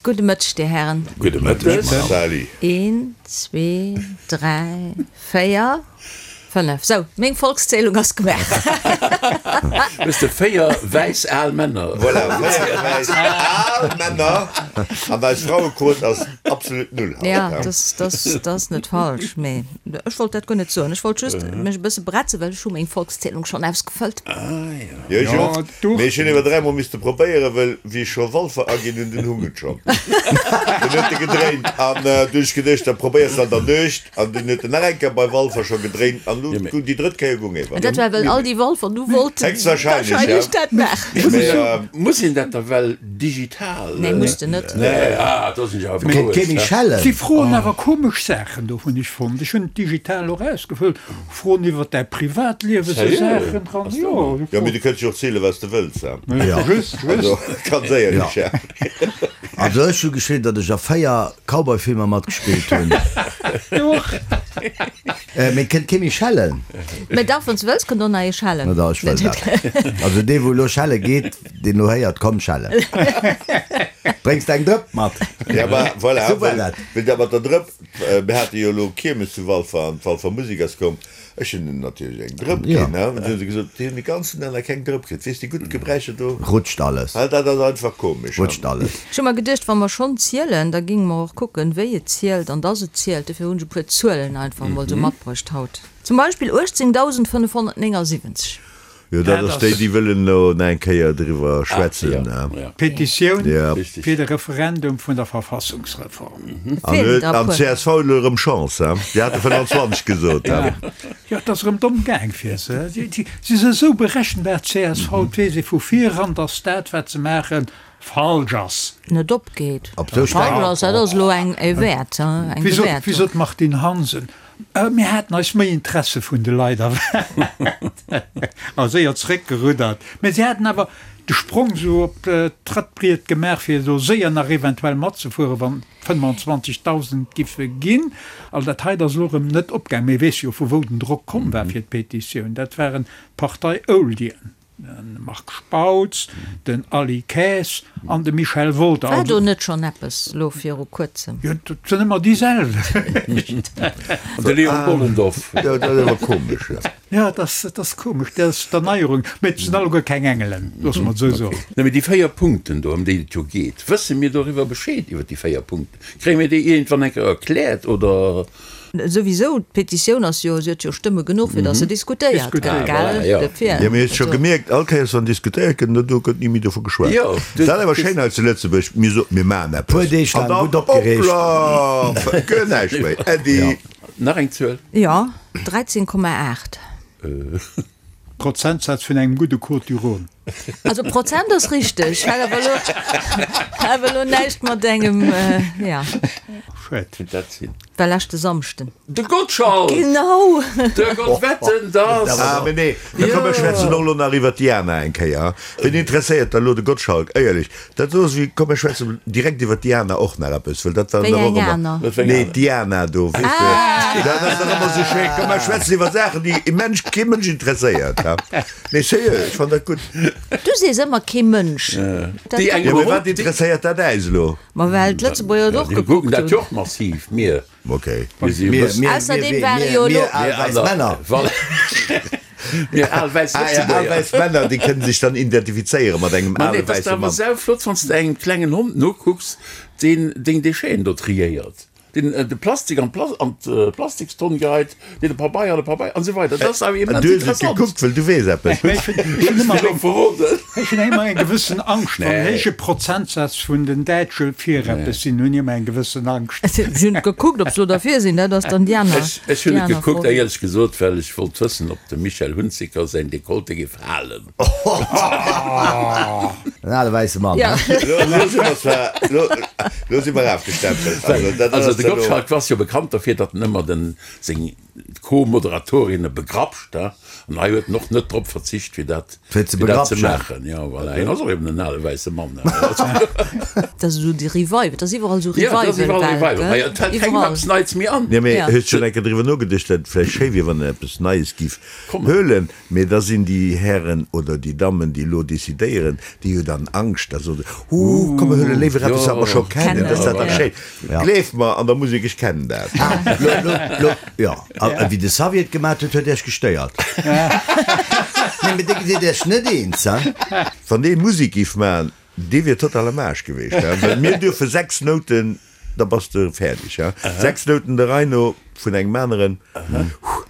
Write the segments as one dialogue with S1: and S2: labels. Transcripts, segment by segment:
S1: Gudde Mëtteg, Dir Hären.
S2: Gudde Mëtteg, Sally.
S1: Een, zwee, dräi, véier, fënnef. Sou, meng Volkszählung ass gemaach.
S2: Hues de véier wäiss al Männer?
S3: Voilà, véier wäiss al Männer. An eis Frauequot ass absolut null haut.
S1: Ja, dat ass net falsch, mee ech wollt dat guer net soen. Ech wollt just mech e bësse bretzen, well ech hu meng Volkszählung schonn ausgefëllt.
S2: Ah jo.
S3: Jo, ech och. Mee ech hunn ewer dräimol misste probéieren, well wéi ech scho Walfer aginn hunn, dunn hung et schonn. Dunn huet e gedréint an du hunn ech geduecht, da probéiers de an der Nuecht an dunn huet en nach eng Kéier bei Walfer scho gedréint an lu gung déi drëtt Kéier gung ewer.
S1: An dat war well all déi Walfer du wollten
S3: Héchstwahrscheinlech, ja.
S1: wahrscheinlech dat maachen.
S3: Mee.
S2: Muss een dat da well digital?
S1: Nee, muss de net.
S2: Nee, ah, do sinn ech awer
S4: Kéint kee
S2: berouegt.
S4: méi schellen.
S5: Si froen awer komesch Saachen do, hunn ech fonnt. Ech hunn et digital och ausgefëllt. Froen iwwer däi Privatliewen, sou Saachen dran, jo.
S3: Jo, mee du kënns jo och zielen, wat s de wëlls,
S5: hè? Just, just.
S3: Also, ganz éierlech, hè?
S4: Also ech hu geschriwwen, datt ech a 4 Cowboy-Filmer matgespillt hunn.
S5: Du och.
S4: Mee kënnt kee méi schellen?
S1: Mee dach, wann s de wëlls, kënnt och nach ee schellen.
S4: Na da, ech wëll dat. Also dee wou elo schelle geet, deen elo héiert, komm schellen. Bréngs de eng Drëpp mat?
S3: Ja, ma voilà,
S4: Sou war dat.
S3: wéi dat mat der Drëpp. Mir hate jo elo Kiermes zu Walfer an d'Walfer Musek ass komm. Ech hunn hinnen natierlech eng Drëpp ginn, he. An du hu se gesot, déi hunn de ganzen Dag nach keng Drëpp kritt. Weess de, gutt Gebräicher do.
S4: Rutscht alles.
S3: Dat ass einfach komesch, he.
S4: Rutscht alles.
S1: Ech hu mer geduecht, wa mer schonn zielen, da géinge mer och kucken, wéi et zielt an dass et zielt. Dofir hunn ech e puer Zuelen einfach emol esou matbruecht haut. Zum Beispill 18.579.
S3: Jo, dat ass déi, déi wëllen elo nach eng Kéier driwwer schwätzen.
S5: D'Petitioun fir de Referendum vun der Verfassungsreform.
S3: An d'CSV huet elo erëm Chance, he? Déi hate 25 gesot, he?
S5: Jo, et ass erëm domm gaang fir se. Si si esou berechenbar, d'CSV. Et weess ee vu viran, datt dat, wat se maachen, falsch ass.
S1: Net opgeet. Falsch ass, dat ass elo eng e Wäert, eng Bewäertung.
S5: Wéi sot d'Martine Hansen, Mir haten eis méi Interesse vun de Leit erwaart a séier zeréckgeruddert. Mä si haten awer de Sprong esou op d'Trëttbriet gemaach, fir do séier nach eventuell matzefueren, wann 25.000 giffe ginn. Also dat hei ass elo erëm net opgaangen. Mee weess jo, vu wou den Drock komm war fir d'Petitioun. Dat waren d'Partei-Oldien. De Marc Spautz, den Aly Kaes an de Michel Wolter.
S1: War do net schonn eppes lo viru kuerzem?
S5: Jo, dat sinn ëmmer déi selwecht.
S2: An de Léon Bollendorf.
S3: Jo, dat ass awer komesch, jo.
S5: Jo, dat ass, dat ass komesch, dat ass d'Erneierung. Mee et sinn alleguer keng Engelen, loosse mer et esou soen.
S2: Nee, mee déi 4 Punkten do, ëm déi et jo geet, wësse mir doriwwer Bescheed, iwwer déi 4 Punkten? Kréie mir déi iergendwann eng Kéier erkläert, oder?
S1: Souwisou, d'Petitioun ass jo, si huet jo Stëmme genuch, fir datt se diskutéiert gëtt, gell? Dofir.
S3: Jo, mee hues scho gemierkt, all Kéiers wann diskutéiert gëtt, do gëtt ni méi dovu geschwat. Dat ass awer schéin hei zu Lëtzebuerg, mir soen, mir maachen eppes,
S4: Puer Deeg
S3: an
S4: laang
S3: dann,
S4: gutt opgereegt.
S3: hoppla, gëtt näischt méi, Äddi.
S2: Nach eng Zuel?
S1: Jo, 13,8.
S5: Prozentsaz vun engem gudde Côtes du Rhône.
S1: Also Prozent ass richteg, hat awer elo, hat awer elo näischt mat engem, ja.
S5: Schued.
S2: Kéint dat sinn?
S1: War leschte Samschden.
S2: De Gottschalk!
S1: Genau!
S2: De Gott wetten, dass!
S3: Ah, mee nee, da komm mir schwätzen och elo nach iwwer d'Diana eng Kéier. Wien interesséiert da elo de Gottschalk? Éierlech, dat ass wéi, komm mir schwätzen direkt iwwer d'Diana och nach eppes, well dat war
S1: Wéi
S3: nach och
S1: eng
S3: ëmmer.
S1: aner?
S2: Wat fir eng
S3: Nee,
S2: aner?
S3: d'Diana do, weess de, dat ass dach ëmmer esou schéin. Komm mir schwätzen iwwer Saachen, déi e Mensch, kee Mënsch interesséiert, ha? Nee, sérieux, ech fann dat gutt.
S1: Du sees ëmmer kee Mënsch. Dat
S2: Déi eng
S3: Jo, mee
S2: iwwer
S3: wat interesséiert dat äis elo?
S1: Ma well d'Lëtzebuerger et och
S2: Déi kucken
S1: gekuckt
S2: dat jo
S1: hunn.
S2: och massiv, mir.
S3: Ok.
S2: Mir si jo
S4: Mir,
S2: bëssen.
S4: mir,
S1: Ausserdeem
S4: mir,
S1: ware
S4: mir,
S1: jo elo.
S4: mir al
S2: Mir
S4: wäiss
S2: aner,
S4: Männer.
S2: voilà. Mir al wäiss
S3: Ah ja, al
S2: Lëtzebuerger.
S3: wäiss Männer, déi kënnen sech dann identifizéiere mat engem
S2: Ma nee,
S3: ale
S2: et ass
S3: wäisse
S2: awer
S3: Mann.
S2: sauflott, wann s de engem klengen Hond nokucks, deen deng Décheten do triéiert. Deen de Plastik an d'Plastikstonn geheit, deen de Pabeier an de Pabeier an esou weider. Dat ass awer immens
S3: Du hues et
S2: interessant.
S3: gekuckt, well du weess eppes.
S5: Ech hunn ëmmer
S2: Elo verroden.
S5: Ech hunn ëmmer eng gewëssen Angscht, wann
S2: Nee.
S5: héije Prozentsaz vun den Däitsche fir eppes sinn, hunn ech ëmmer eng gewëssen Angscht.
S1: Ech hunn gekuckt, ob se elo derfir sinn. Dat ass dann déi aner,
S2: Ech, ech hunn
S1: déi
S2: et
S1: aner
S2: gekuckt,
S1: Fro.
S2: éierlech gesot, well ech wollt wëssen, ob dem Michel Hunziker säin Dekolleté géif halen.
S4: En ale wäisse Mann,
S1: Ja.
S4: he?
S3: Lo, lo si mer zwar, lo, lo si mer afgestempelt. Also, dat
S2: Also
S3: ass
S2: de
S3: elo.
S2: Gottschalk ass jo bekannt derfir, datt en ëmmer den, seng. d'Co-Moderatorinnen begrapscht, he, an hei huet en och net drop verzicht, fir dat,
S4: Fir ze
S2: fir dat ze
S4: begrapschen.
S2: maachen. Jo, voilà, hien ass och eben en ale wäisse Mann, he.
S1: Dat ass esou de Revival, et ass iwwerall esou
S2: Ja, et ass iwwerall
S1: Revival-Welt,
S2: Revival.
S1: gell?
S2: Hei, et fält kengem
S1: Iwwerall.
S2: eppes Neits méi an.
S3: Jo, mee
S1: Ja.
S3: hues schonn eng Kéier driwwer nogeduecht, datt et vläicht schéi wier, wann en eppes Neies giff
S2: Kommen.
S3: huelen? Mee da sinn déi Hären oder déi Dammen, déi elo decidéieren, déi hu dann Angscht, da soe se, Huh, komm mir huele léiwer eppes, wat mer scho kennen, dat ass dat dach schéin. Gleeft mer, an der Musek, ech kennen dat.
S4: Lo, lo, lo, jo, a wéi de Xavier et gemat huet, huet Iech gestéiert. Nee, mee dir sidd Iech net eens, hein?
S3: Wann dee Musek giff man, dee wier total am Aarsch geweecht, hein, well mir duerfe 6 Nouten, da bass de fäerdeg, hein, 6 Nouten der Rei no vun engem aneren,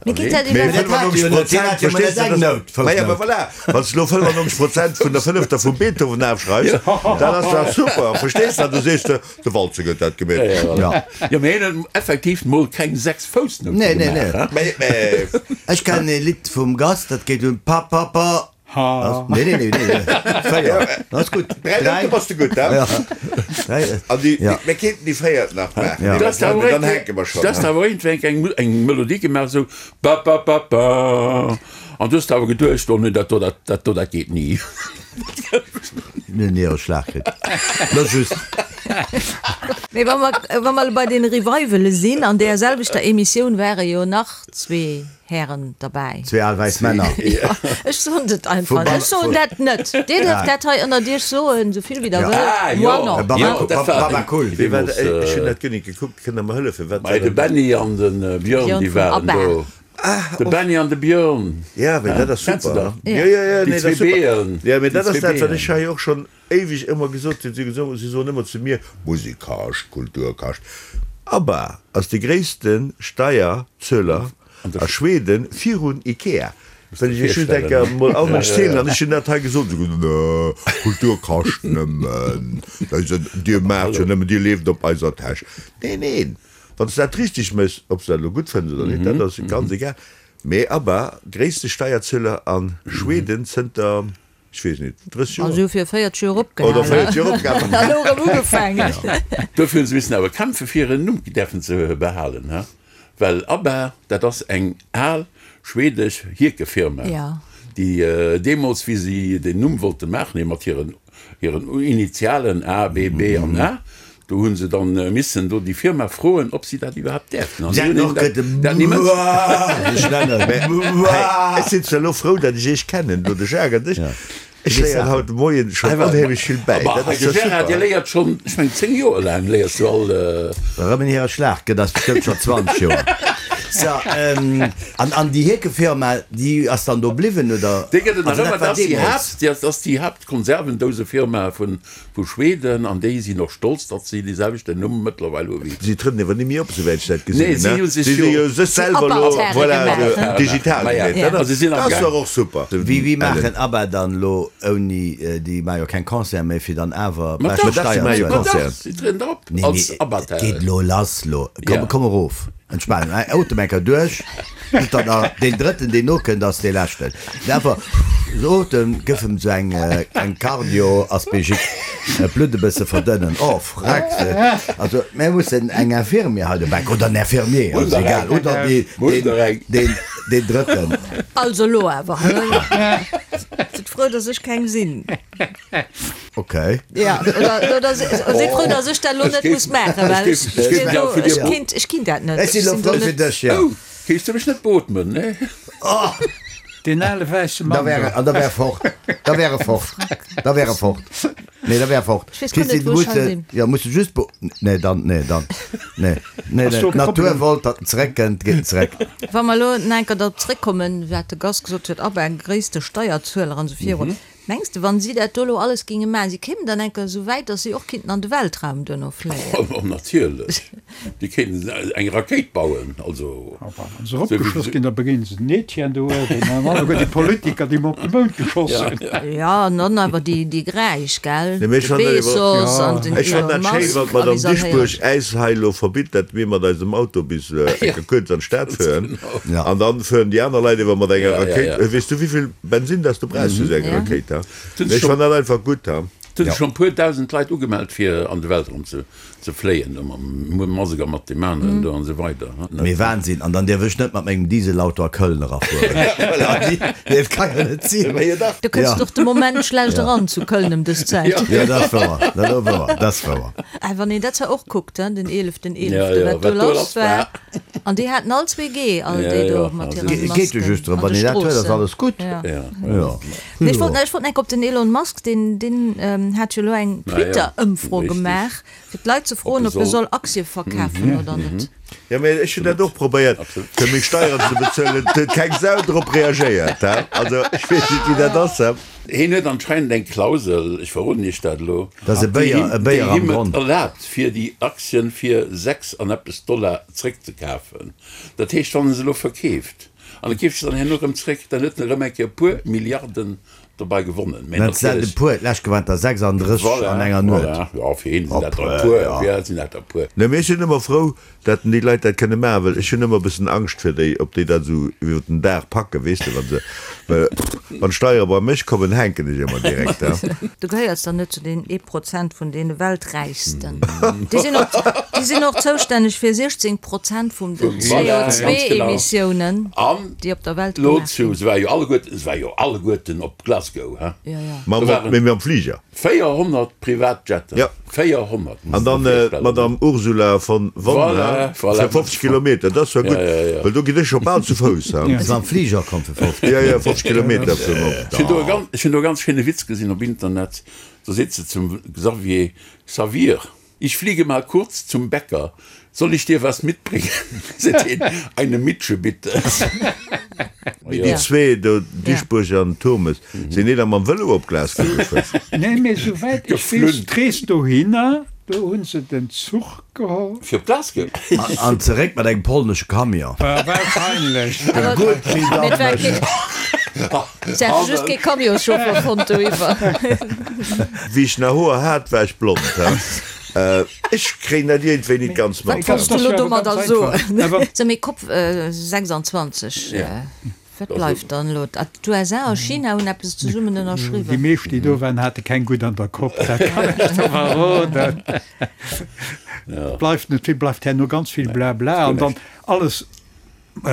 S1: Mee geet dat
S3: Mee
S1: iwwerhaapt?
S3: 95 Prozent, verstees de, dat, ma ja, ma voilà, wann s de elo 95 Prozent vun der fënnefter vum Beethoven afschreifs, dann ass dat super, verstees de, an du sees de, de Walzer huet dat gemeet.
S4: Ja.
S2: Jo, mee hien huet effektiv mol keng 6 Foussnoute
S4: Nee, nee,
S2: gemaach,
S4: nee.
S2: hein.
S3: Mee, mee.
S4: Ech kennen e Lidd vum Gast, dat geet un pa pa pa.
S5: Ha.
S4: Nee, nee, nee, nee. Véier. Dat ass gutt.
S3: Dräi Noute bass de gutt,
S4: Ja.
S3: hein?
S4: Dräi.
S3: An déi,
S4: Ja.
S3: mir kéinten déi véiert nach maachen,
S4: Ja.
S3: mee
S2: Du hast
S3: dann,
S2: awer
S3: dann hänke mer schonn,
S2: du hast
S3: hein?
S2: awer iergendwéi eng, eng Melodie gemaach, esou ba ba ba ba. An du hast awer geduecht, oh nee, dat do, dat, dat do, dat geet ni.
S4: Mir hunn hire Schlag kritt. Lo just.
S1: Mee wa mer, wa mer bei den Revivale sinn, an deer selwechter Emissioun ware jo nach zwee Hären derbäi.
S4: Zwee al wäiss Männer.
S1: Jo, ech soen et einfach. Ech soen dat net. Dir dierft dat hei ënnert Iech soen, esou vill wéi Der wëllt.
S2: Ah,
S1: Moi
S2: jo,
S1: non.
S2: jo, dat war
S4: Baba Cool.
S3: Wéi war dat? Ech hunn dat guer net gekuckt. Kënnt Der mer hëllefen? Wat war
S2: Mei, de
S3: dat?
S2: Benny an de Björn,
S1: Björn
S2: déi
S1: vun
S2: waren
S1: ABBA.
S2: do. De Benny an de Björn.
S3: Ja, mee dat ass
S2: Kennst du
S3: super.
S2: dat?
S3: Jo, jo, jo,
S2: Déi
S3: nee, dat
S2: zwee
S3: ass super.
S2: Beeën.
S3: Ja, mee
S2: Déi
S3: dat ass
S2: zwee
S3: dat, wat ech
S2: Beeën.
S3: hei och schonn éiweg ëmmer gesot hunn. Si gesot, si soen ëmmer zu mir, Musek kascht, Kultur kascht. ABBA ass de gréisste Steierzueler a Schweden virun Ikea. Wëll ech iech just eng Kéier mol all Mënsch zielen, an ech hunn dat hei gesot, si gesot, Nö, Kultur kascht nëmmen, dir maacht jo nëmmen, dir lieft op eiser Täsch. Neen, neen, wann s de dat richteg méchs, ob s de dat elo gutt fënns oder net, dat ass ganz egal, mee ABBA, gréisste Steierzueler a Schweden zënter, ech weess net, 30 Joer.
S1: Also fir 40 Joer opgehalen.
S3: Oder 40 Joer opgehalen.
S1: An elo erëm ugefaangen.
S2: Dofir hu se missen awer kämpfe fir hiren Numm däerfen ze behalen, he? Well ABBA, dat ass eng al schwedesch Hierkefirma, déi deemools, wéi si den Numm wollte maachen, mat hiren hiren Initialen A, B, B an A, Do hunn se dann missen do déi Firma froen, ob si dat iwwerhaapt däerften. An si hunn hinnen dat ni mënsch.
S3: Ech sinn zwar elo frou, datt ech iech kennen, do de Jacques an dech. Ech léieren haut de Moien schonn onheemlech vill bäi. Dat ass
S2: De
S3: jo
S2: Gérard,
S3: super.
S2: dir léiert schonn, ech mengen 10 Joer laang léiers du all.
S4: Erëm en hire Schlag gëtt ass bestëmmt schonn 20 Joer. So, an, an déi Hierkefirma, déi ass dann do bliwwen, oder?
S2: Déi gëtt et nach
S4: Also dat
S2: ëmmer,
S4: war
S2: dat ass déi
S4: deemools.
S2: Haapt, dat ass déi Haaptkonservendousefirma vun Vu Schweden, an déi sinn och stolz, datt si dee selwechten Numm mëttlerweil hu wéi.
S3: Si trënnen ewer ni méi op, souwäit ech dat gesinn
S2: Nee,
S3: hunn,
S2: si
S3: ne?
S2: hu sech
S3: Si si
S2: jo.
S3: jo sech selwer elo,
S1: Apparterre
S3: voilà,
S1: gemaach,
S3: esou
S1: ne?
S3: digital
S2: Maja,
S3: gemeet. Dat
S2: also
S3: ass,
S2: si sinn
S3: dat
S2: am
S3: ass
S2: Gaang.
S3: dach och super.
S4: Wéi, wéi
S3: Ellen.
S4: maachen ABBA dann elo ouni, déi maache jo keng Concerte méi, fir dann awer
S2: Ma
S4: beschte
S2: dach,
S3: dach, si
S4: Steier
S3: maache jo
S4: ze huelen?
S2: ma dach,
S3: Concerten.
S2: si trieden op
S4: Nee,
S2: als
S4: nee,
S2: ABBA.
S4: et geet elo lass lo. Komm,
S2: Ja.
S4: komm erof. Entspanen. Otem eng Kéier duerch. Net dann nach deen drëtten, deen nokënnt, ass dee leschten. Mee einfach esou otem, gëff em esou eng, eng Cardio-Aspégique, d'Blutt e bësse verdënnen. Oh, freck! Also, mir mussen eng Infirmière hei dobäi, oder en Infirmier, ass egal, oder dee, deen, deen, deen drëtten.
S1: Also elo awer, sidd frou, dass ech keng sinn.
S4: Okay.
S1: Ja, oder, oder sidd frou, dass ech dat elo net muss maachen, well ech, ech kinnt, ech kinnt dat net.
S4: Ech sinn elo frou fir dech, jo.
S2: Oh, kéis du mech net beotmen, ne?
S4: Oh!
S5: Deen ale wäisse
S4: Da
S5: Mann
S4: wär,
S5: do.
S4: an da wär e fort. Da wär e fort. Da wär e fort. Nee, da wär e fort.
S1: Ech weess guer net,
S4: Christine,
S1: wou ech
S4: muss
S1: hei
S4: de,
S1: sinn.
S4: jo, muss de just be, nee, dann, nee, dann, nee, nee,
S5: Ass
S4: nee.
S5: do e
S4: D'Natur
S5: Problem?
S4: wollt, datt en zeréckkënnt, geet en zeréck.
S1: Wa mer elo nach eng Kéier drop zréckkommen, wat de Gast gesot huet, ABBA, gréisste Steierzueler an esou virun. Mengs de, wann si dat do elo alles géinge maachen, si kéimen dann eng Kéier esou wäit, datt si och kinnten an de Weltraum duerno fléien?
S2: Oh, natierlech! Déi kéinten eng Rakéit bauen, also.
S5: A wa se eropgeschoss ginn, da begéine se den Etienne do uewen an alleguer déi Politiker, déi mer op de Mound geschoss hunn.
S1: Jo, an dann awer déi, déi Gräich, gell?
S3: Nee, mee ech
S1: De
S3: fannen dat iwwer,
S1: Bezos an den
S3: ech fannen
S1: Elon
S3: dat schéin,
S1: Musk
S3: wann
S1: a wéi
S3: d'Madame
S1: se all
S3: Dieschbourg
S1: héieren.
S3: äis hei elo verbitt, datt mir mat eisem Auto bis eng Kéier kuerz an d'Stad fueren an dann fueren déi aner Leit iwwer mat enger Rakéit. Weess du, wéivill Bensin dass du brauchs fir esou eng Rakéit? Ha? Mee ech fannen dat einfach gutt. Ha?
S2: Et hu sech schonn e puer 1.000 Leit ugemellt fir an de Weltraum ze ze fléien, do mam Musk a mat deem aneren do an esou weider.
S4: Mee Wahnsinn! An dann dierf ech net mat mengem Dieselauto a Köln erafueren. Nee, et ka jo net sinn.
S1: Du kënns och de Moment schlecht eran zu Köln ëm dës Zäit.
S4: Jo, dat ass wouer, dat ass wouer, dat ass wouer.
S1: Äh, wann een dat zwar och kuckt, hein, den eeleften eeleften, wat do lass war. An déi haten all 2G, all déi do mat hiren
S4: Masken. Geet jo just drëm, wann een dat huet, ass alles gutt.
S1: Jo. Nee, ech wollt, ech wollt enk op den Elon Musk, deen, deen hat jo elo eng Twitter-Ëmfro gemaach, fir d'Leit ze froen, ob e soll Aktie verkafen oder net.
S3: Jo, mee ech hunn dat och probéiert, fir meng Steieren ze bezuelen. Et huet keng Sau drop reagéiert, he. Also, ech weess net, wéi dat ass, he.
S2: Hien huet anscheinend eng Klausel, ech verroden Iech dat elo,
S4: Dat ass e
S2: déi
S4: Béier,
S2: him,
S4: e
S2: déi
S4: Béier am
S2: him et
S4: Gronn.
S2: erlaabt, fir déi Aktien fir 6 an eppes Dollar zréckzekafen. Dat heescht, wann e se elo verkeeft, An e keeft se dann herno erëm zréck, dann huet en erëm eng Kéier e puer Milliarden dobei gewonnen. Mä
S4: Dat sinn e puer, d'lescht waren der 36 an enger Nuet.
S2: Voilà, jo, fir hien sinn dat der e puer, fir eis sinn dat der e puer.
S3: Nee, mee ech sinn ëmmer frou, dat déi Leit dat kënne maachen, well ech hunn ëmmer e bëssen Angscht fir déi, ob déi dat esou iwwer den Dag packen, weess de, wa se, well wann d'Steiere bei mech kommen, hänken ech ëmmer direkt,
S1: he. Du gehéiers dann net zu den ee Prozent vun deene Welträichsten. Déi sinn och, déi sinn och zoustänneg fir 16 Prozent vum den CO2-Emissiounen, déi op der Welt
S2: Lo
S1: gemaach
S2: zu,
S1: ginn.
S2: se war jo alleguerten, se war jo alleguerten op Glasgow, he?
S1: Jo, jo.
S3: Mam,
S2: Do waren
S3: mee mam Fliger.
S2: 400 Privatjetten.
S3: Ja.
S2: 400,
S3: An
S2: muss de
S3: dann
S2: dir virstellen.
S3: d'Madame Ursula von von,
S2: Voilà,
S3: he?
S2: voilà.
S3: Fir 50 Kilometer, dat ass zwar
S2: Ja,
S3: gutt,
S2: ja, ja.
S3: well do ginn ech scho bal zu Fouss, he?
S4: Ass mam Fliger komm fir 50
S3: Ja, ja, 50 Kilometer vum op.
S2: Ech hunn do e ganz, ech hunn do e ganz schéine Witz gesinn op Internet. Do seet se zum Xavier, Xavier, ich fliege mal kurz zum Bäcker, soll ich dir was mitbringen? Seet hien, Eine Mitsche bitte.
S3: Mee déi zwee do, Dieschbourg an Turmes, sinn déi da mam Vëlo op Glasgow gefuer?
S5: Nee, mee souwäit ech weess, d'Rees dohinner, do hu se den Zuch geholl.
S2: Fir op Glasgow?
S4: An zeréck mat engem polnesche Camion.
S5: Wahrscheinlech.
S4: Gutt, wéi dat mécht.
S1: Se hätte just kee Camionschauffer fonnt doiwwer.
S3: Wéi ech nach Hoer hat, war ech blond. Ech kréien dat iergendwéi nit ganz mat.
S1: Wat wolls du elo domadder soen? Sou, mee Cop 26, wat bleift dann elo? D'USA a China hunn eppes zesummen ënnerschriwwen.
S5: Déi meescht, déi do waren, hate keng gutt an der Kopp, dat kann ech der verroden. Bleift net vill, bleift herno ganz vill Blabla an dann alles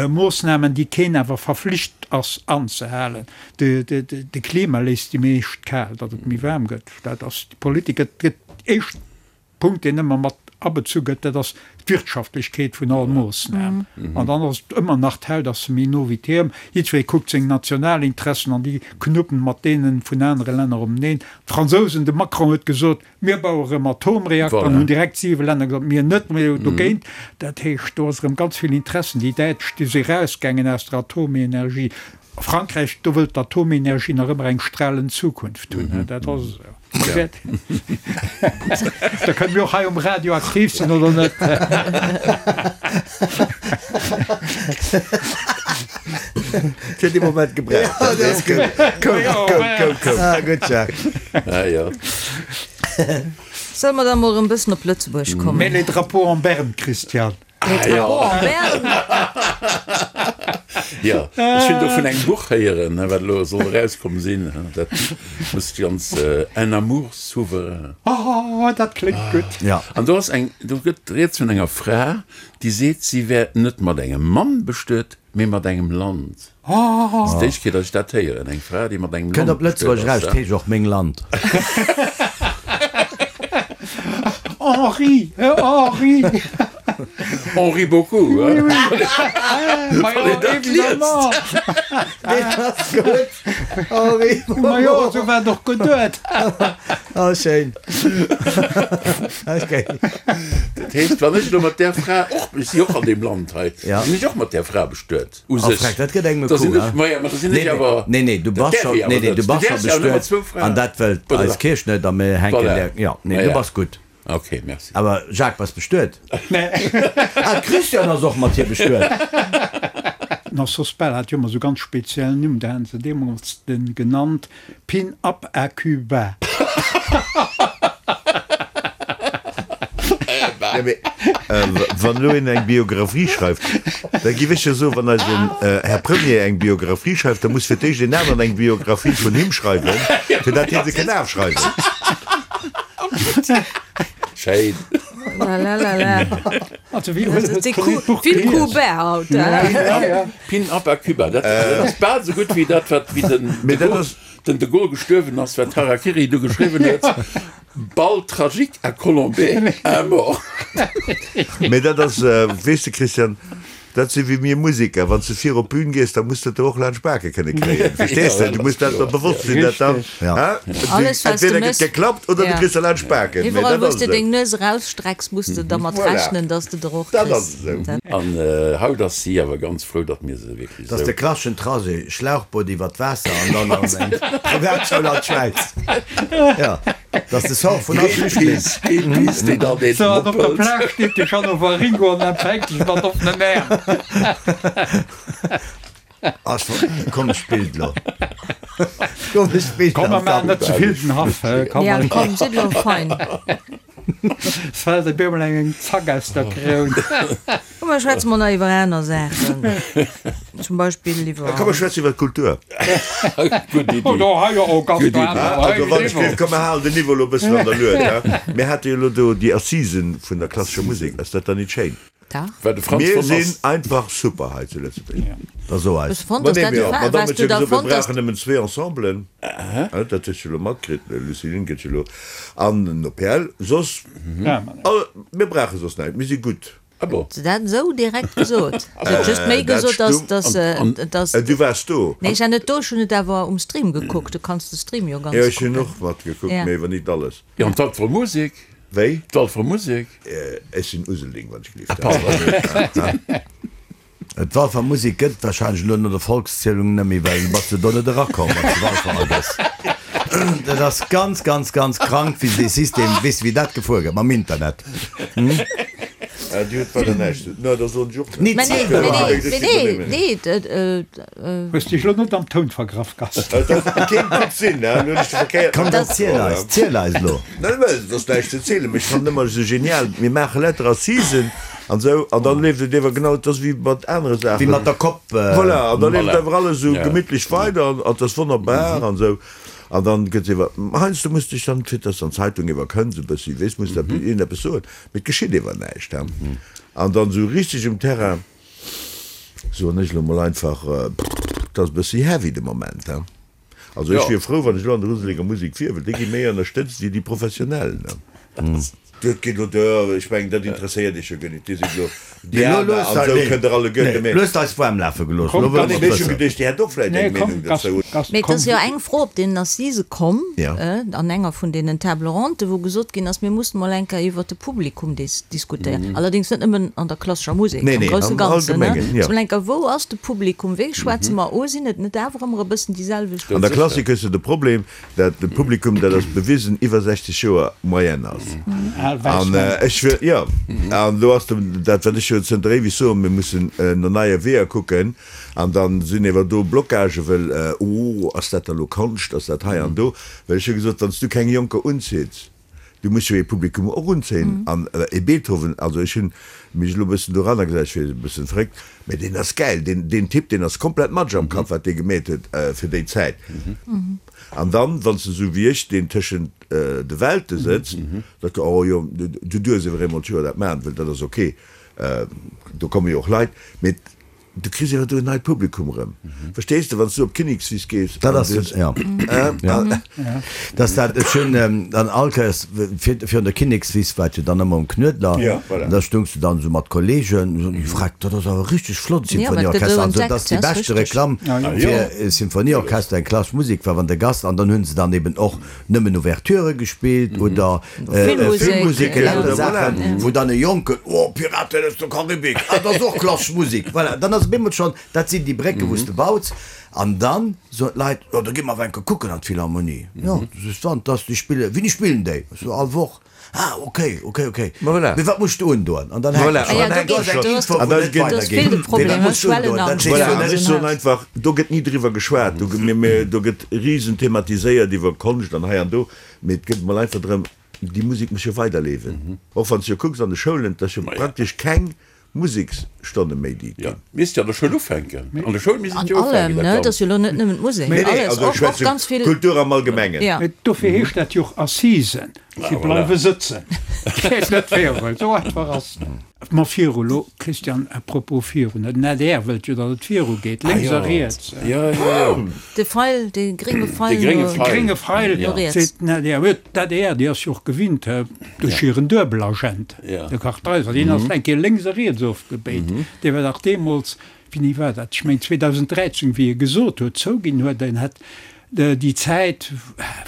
S5: Moossnamen, déi keen awer verflicht ass anzehalen. De Klima léisst déi meescht kal, datt et méi waarm gëtt. Dat ass déi Politik. Et gëtt éischt Punkt, deen ëmmer mat abezu gëtt, dat ass d'Wirtschaftlechkeet vun all Moossnam. An dann ass et ëmmer nach, d'Haut ass méi no wéi d'Hiem. Jiddweree kuckt seng national Interessen an déi knuppen mat deene vun anere Länner omeneen. D'Fransousen, de Macron huet gesot, Mir baue rëm Atomreakter an hunn direkt siwe Länner gesot, mir net, mir dogéint. Dat heescht, do ass erëm ganz vill Interessen. Déi Däitsch, déi si erausgaangen aus der Atomenergie. Frankräich, do wëllt d'Atomenergie nach ëmmer eng stralend Zukunft hunn. Dat ass esou. Da kënne mir och hei um Radio aktiv sinn, oder net?
S3: Fir dee Moment gebraucht. Ja, dat ass gutt. Koum, koum, koum, koum.
S4: Ah, gutt, Jacques.
S2: Ah, jo.
S1: Solle mer da mol erëm bëssen op Lëtzebuerg kommen?
S5: Mets les drapeaux en berne, Christian.
S1: Les drapeaux en berne?
S2: Jo, ech hunn do vun engem Buch héieren, wat elo soll erauskomm sinn. Dat muss ganz Un amour souverain.
S5: Oh, dat kléngt gutt.
S4: Ja.
S2: An do ass eng, do gëtt rieds vun enger Fra, déi seet, si wär net mat engem Mann bestuet, mee mat engem Land. Dat ass d'éischt Kéier, datt ech dat héieren, eng Fra, déi mat engem
S4: Kënnt
S2: Land
S4: op Lëtzebuerg
S2: bestuet
S4: eraus,
S2: ass.
S4: 't heescht och Meng Land.
S5: Henri, Henri!
S2: Henri beaucoup,
S5: Oui, oui. Ma
S2: Wann
S5: jo,
S2: een dat liest.
S5: évidemment.
S4: Deen ass gutt, Henri
S5: Ma jo, esou war et och geduet.
S4: Oh, schéin. Okay.
S2: Dat heescht, wann ech elo mat där Fra och, ech si och an deem Land hei,
S4: Ja.
S2: sinn ech och mat där Fra bestuet, u
S4: Oh,
S2: sech.
S4: Freck, dat gëtt engem e
S2: Da sinn
S4: Coup,
S2: ech,
S4: hein?
S2: ma ja, ma da sinn
S4: Nee,
S2: ech
S4: nee,
S2: awer,
S4: nee, nee, du
S2: dat
S4: bass
S2: däerf
S4: scho,
S2: ee awer
S4: nee, nee,
S2: net.
S4: du
S2: Du
S4: bass scho
S2: däerfs jo awer nëmmer
S4: bestuet
S2: zwou Fraen.
S4: an dat wëllt
S2: Voilà.
S4: eis Kierch net a mir hänken
S2: Voilà.
S4: där, jo, nee,
S2: Ma
S4: du
S2: ja.
S4: bass gutt.
S2: Ok, merci.
S4: Awer Jacques, bass bestuet?
S5: Nee.
S4: Ah, Christian ass och mat hir bestuet.
S5: Den Sospel hat jo ëmmer esou ganz speziell Nimm, da haten se deemools den genannt Pin up à Cuba.
S3: Ja, mee wann elo een eng Biographie schreift, da giff ech jo soen, wann eisen Här Premier eng Biographie schreift, da muss fir d'éischt een aneren eng Biographie vun him schreiwen, fir dat hie se kënn afschreiwen.
S2: Schéin.
S1: La la la la.
S5: Also wéi huet
S1: Dat si
S5: huet d'Buch
S1: vill
S5: gelies?
S1: Coups bas haut,
S2: Ja. Pin Up a Cuba, dat ass bal esou gutt wéi dat, wat wéi den
S3: Mee
S2: de
S3: dat
S2: Gaulle,
S3: ass.
S2: den de Gaulle gestuerwen ass, wat Harakiri du geschriwwen huet, Bal tragique à Colombey, un mort.
S3: Mee dat ass, weess de Christian, dat si wéi mir Museker, wann s de vir op d'Bün gees, da muss de et der och laanscht d'Bake kënne kréien, verstees de? Du muss dat der bewosst sinn, dat dann,
S4: Ja.
S3: du,
S1: Alles, wat du
S3: entweder gëtt
S1: mëss,
S3: geklappt oder du
S1: ja.
S3: kriss der laanscht d'Baken, mee
S1: Iwwerall,
S3: dat
S1: wou s
S3: ass
S1: de
S3: esou.
S1: deng Nues erausstrecks, muss de dermat
S3: Voilà.
S1: rechnen, dass de der och
S3: Dat ass
S1: kriss.
S3: esou.
S1: Dat.
S2: An haut ass si awer ganz frou, datt mir se wierklech
S4: Dat ass de klasseschen Trajet, Schlauchboot iwwer d'Waasser an dann an eng Privatschoul an d'Schwäiz. Jo, dat ass de Sort vun all Flüchtling.
S2: Greenpeace, Greenpeace, déi dann deen
S5: So, an op der
S2: moppelt.
S5: Plage steet de Jeannot Waringo an empfänkt dech mat offenen Äerm.
S4: Ass komesch Bild lo. Komesch Bild.
S5: Komm, mer maachen net ze vill den Haff, hä? Komm,
S1: Ja, komm, sidd elo fein.
S5: Es fält op eemol eng Zack aus der Kroun.
S1: Komm, mer schwätze mol nach iwwer aner Saachen. Zum Beispill iwwer.
S3: Komm, mer schwätzen iwwer d'Kultur.
S2: Gutt Iddi.
S5: Oh, do hei jo och ganz
S2: Gutt Iddi.
S5: aner. Hei
S3: Also, wann ech
S5: Niveau.
S3: géif, komm, mer halen den Niveau elo e bëssen an der Lued, hä? Mir hate jo elo do déi Assisen vun der klassescher Musek. Ass dat dann nit schéin?
S1: Dach.
S2: Well de Franz
S3: Mir
S2: von
S3: sinn
S2: ass.
S3: einfach super hei zu Lëtzebuerg.
S4: Da so
S1: Hues
S4: eis.
S1: du fonnt,
S3: Ma
S1: dass
S3: nee,
S1: dat
S3: mir,
S1: de Fa
S3: d'Madame
S1: Waars
S3: huet
S1: du
S3: jo
S1: da
S3: gesot, mir
S1: fonnt, dass.
S3: brauchen nëmmen zwee Ensemblen. Dat hues du elo matkritt, Lucie Lynn gëtt jo elo an den OPL. Soss, all, mir brauche soss näischt, mir si gutt.
S2: Ah bon.
S1: Huet se dat esou direkt gesot? Se huet just méi
S3: Dat
S1: gesot, dass,
S3: stung.
S1: dass,
S2: An,
S1: dass.
S3: Du waars do.
S1: Nee, ech war net do, ech hunn et awer um Stream gekuckt. Du kanns de Stream jo ganz
S3: Jo, ech hunn
S1: kucken.
S3: och matgekuckt,
S1: Ja.
S3: mee awer nit alles.
S2: Jo, an d'Walfer Musek?
S3: Wéi?
S2: D'Walfer Musek?
S3: Ech sinn Uselding, wann ech gelift.
S2: Pardon.
S4: D'Walfer Musek gëtt et warscheinlech elo no der Volkszielung net méi, well du bass jo do net erakomm, wann s de Walfer agëss. Dat ass ganz, ganz, ganz krank, wéi se dee System, weess de wéi dat gefuer gëtt mam Internet?
S3: Dir hutt weider näischt ze. No, da soen ech och
S4: Nit
S1: Mä nee,
S4: ze.
S1: mä nee, mä nee, nee, d',
S5: Hues dech lo net am Toun vergraff, Gast?
S3: Dat kéint gutt sinn, hè? Lo hunn ech de verkéierten
S4: Komm,
S3: Knopf
S4: dann ziel
S3: geholl,
S4: eis, ziel eis lo.
S3: Net well, et ass näischt ze zielen, mee ech fannen ëmmer esou genial, mir maache lauter Assisen an esou, an dann leeft et ewer genau, et ass wéi mat anere Saachen.
S4: Wéi mat der Kopp.
S3: Voilà, an da leeft
S2: Voilà.
S3: ewer alles esou
S2: Ja.
S3: gemittlech weider an et ass wonnerbar an esou. An dann gëtt ewer, heiansdo muss dech dann, fir dass dann d'Zeitung ewer kënnt, esou e bëssi, weess, muss da iergendeppes soen, mee et geschitt ewer näischt, hè. An dann esou richteg um Terrain, soen ech elo mol einfach, et ass e bëssi heavy de Moment, he. Also ech wier frou, wann ech elo an der Useleger Musek wier, well déi gi méi ënnerstëtzt wéi déi Professionell, ne. Dat geet elo duer, ech mengen, dat interesséiert Iech jo guer net. Dir sidd elo Diana an esou, kënnt Der alleguerte, mee.
S4: Lu hues eis waarm lafe gelooss, elo wëlle mer
S3: Mee ech hu
S4: et wëssen.
S3: geduecht, Dir hätt och vläicht eng Meenung dozou.
S1: Mee et ass jo eng Fro op deenen Assisë komm, an enger vun deenen Table rondes, wou gesot ginn ass, mir mussen mol eng Kéier iwwert de Publikum diskutéieren. Allerdéngs net nëmmen an der klassescher Musek,
S3: Nee,
S1: am
S3: nee,
S1: grousse
S3: am
S1: Ganzen.
S3: Allgemengen, jo.
S1: Mol eng Kéier, wou ass de Publikum, wéi schwätze mer u, sinn et net awer ëmmer e bëssen déi selwecht?
S3: An der Klassik hues de de Problem, dat de Publikum, dat ass bewisen, iwwer 60 Joer Moyenne ass.
S5: Al wäiss
S3: An
S5: Männer.
S3: ech wëll, jo, an do ass de, dat wat ech jo zënter éiweg soen, mir mussen no neie Weeër kucken. An dann sinn ewer do Blockagen, wëll, oh, ass dat da lo Konscht, ass dat hei an do? Well ech hu gesot, wann s du keng Jonker unzitts, Du muss jo ee Publikum och unzéien. An ee Beethoven, also ech hunn mech elo e bëssen doranner gesat, ech wier e bëssen verréckt, mä deen ass gäil, deen, deen Typ, deen ass komplett Matsch am Kapp, wat dee gemeet huet fir déi Zäit. An dann, wann s de esou wéi ech, deen tëschent de Welte sëtzt, da, oh jo, du duerfs ewer eemol d'Joer dat maachen, well dat ass ok, do komme jo och Leit, mee Du kriss awer do en neit Publikum erëm. Verstees de, wann s du op d'Kinnekswiss gees.
S4: Dat ass, jo. Dat ass dat, ech hunn dann all Kéiers, vir, virun der Kinnekswiss war et jo dann ëmmer um Knuedler,
S3: Ja, voilà.
S4: an da stoungs du dann esou mat Kollegen, an esou, Freck, dat ass awer richteg flott,
S1: Ja, dat gëtt
S4: Symphonieorchester.
S1: esou
S4: An esou, dat ass
S1: entdeckt,
S4: déi
S1: ja, ass
S4: beschte
S1: richteg.
S4: Reklamm fir e Symphonieorchester, eng klassesch Musek war, wann de Gast, an dann hu se dann eben och nëmmen Ouverturë gespillt oder Filmmusek, lauter Saachen, wou dann e Jonken, Oh, Piraten aus der Karibik, ah, dat ass och klassesch Musek. Voilà, dann ass op eemol schonn, dat sinn déi Brécken, wou s de baus. An dann soen d'Leit, Jo, da gi mer awer eng Kéier kucken an d'Philharmonie. Jo, du sees dann, dass déi spillen. Wéini spillen déi? Ech so, All Woch. Ah, okay, okay, okay. Mee wat muss du undoen? An dann hänkt et schonn. Do ass eng Info, wou net weidergeet. Mee wat muss du undoen? Dat sees du net.
S3: Ech soen einfach, do gëtt ni driwwer geschwat. Do gëtt risen thematiséiert iwwer Konscht an hei an do. Mee et gëtt emol einfach drëm, déi Musek muss jo weiderlewen. Och wann s du jo kucks an de Schoulen, et ass jo praktesch keng Museksstonne méi déi
S2: Jo,
S3: ginn.
S2: misst jo an der Schoul ufänken. An der Schoul misst
S1: An
S2: et jo
S1: allem,
S2: ufänken, dat
S1: ne? Et ass
S2: Ganzt.
S1: jo elo net nëmmen d'Musek,
S3: Nee, nee,
S1: alles,
S3: also ech
S1: och, och
S3: schwätze
S1: ganz vill.
S3: Kultur am Allgemengen.
S1: Ja.
S5: Mee dofir heescht dat jo och Assisen. Si bleiwe sëtzen. Geet net virun. Esou einfach ass dat. Ma viru lo, Christian, à propos virun, den adr wëllt jo, datt et viru geet, lénks a riets.
S2: Jo, jo, jo.
S1: De Feil, de grénge Feil no riets.
S5: De grénge Feil, seet den adr. Huet d'ADR, déi ass jo och gewinnt, duerch hiren Duebelagent, de Kartheiser, deen ass eng Kéier lénks a riets ofgebéit. Dee war dach deemools, wéini war dat, ech mengen 2013, wéi e gesot huet, zouginn huet, en hätt déi Zäit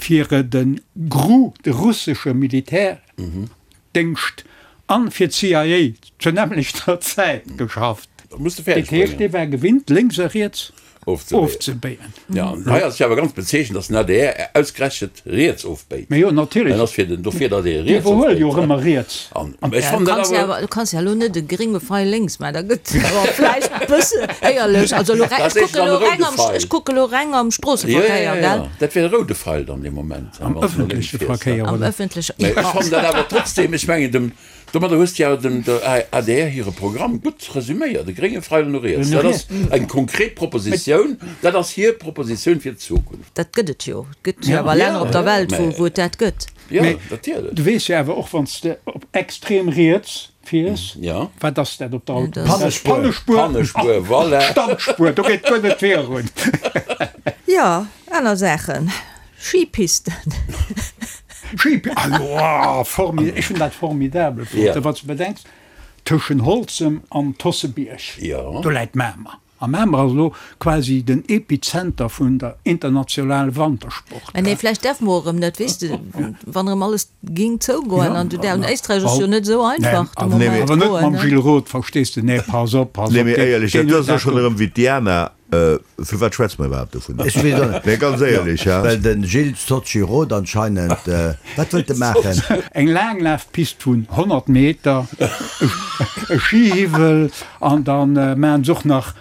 S5: fir de GRU, de russesche Militärdéngscht, an fir d'CIA zur nämmlechter Zäit geschafft. Dat heescht, dee war gewinnt, lénks a riets ofzebéien.
S2: Jo, an hei ass et jo awer ganz bezeechent, datt den adr ausgerechent riets ofbéit.
S5: Mä jo, natierlech.
S2: En ass fir den, dofir, datt ee
S5: riets ofbéit. Déi iwwerhuele jo och ëmmer riets.
S2: An ech fannen dat awer.
S1: Du kanns jo elo net e grénge Feil lénks maachen, da gëtt et awer vläicht e bësse éierlech. Also elo, ech kucke elo reng am, ech kucke elo reng am Stroosseverkéier, gell?
S2: Jo, jo, jo, dat wier e roude Feil dann dee Moment.
S5: Am ëffentleche Verkéier,
S1: oder? Am ëffentleche,
S2: jo. Mä ech fannen dat awer trotzdem, ech mengen dem. Domadder hues de awer dem der adr hire Programm gutt resüméiert, e grénge Feil no riets. Dat ass eng konkret Propositioun, dat ass hir Propositioun fir d'Zukunft.
S1: Dat gëtt et jo. Et gëtt jo awer Länner op der Welt, wou et dat gëtt.
S2: Jo, natierlech.
S5: Du weess jo awer och, wann s de op extrem riets fiers, wat ass dat op der Autobunn?
S4: Pannespuer.
S5: Pannespuer.
S2: Pannespuer, voilà.
S5: Standspuer, do geet guer net virun.
S1: Jo, aner Saachen. Skipisten.
S5: Schipi, ah jo, ech hunn dat formidabel fonnt, wann s de bedenks, tëschen Holzem an Tossebierg, do läit Mamer. A Mamer ass elo quasi den Epizenter vun der internationale Wantersport.
S1: Mä nee, vläicht däerfe mer och erëm net, weess de, wann erëm alles géing zougoen an du däerf, an Éisträich ass jo net esou einfach de Moment
S5: Awer net mam Gilles Roth, verstees de, nee, pass op, pass op.
S3: Nee, mee éierlech, dat ass och schonn erëm wéi d'Diana Firwat schwätze mer iwwerhaapt dovun?
S4: Ech weess och net.
S3: Nee, ganz éierlech, ha?
S4: Well de Gilles Socci Roth anscheinend, wat wëllt e maachen?
S5: Eng Laanglafpist vun 100 Meter, e Schihiwwel an da maachen se och nach,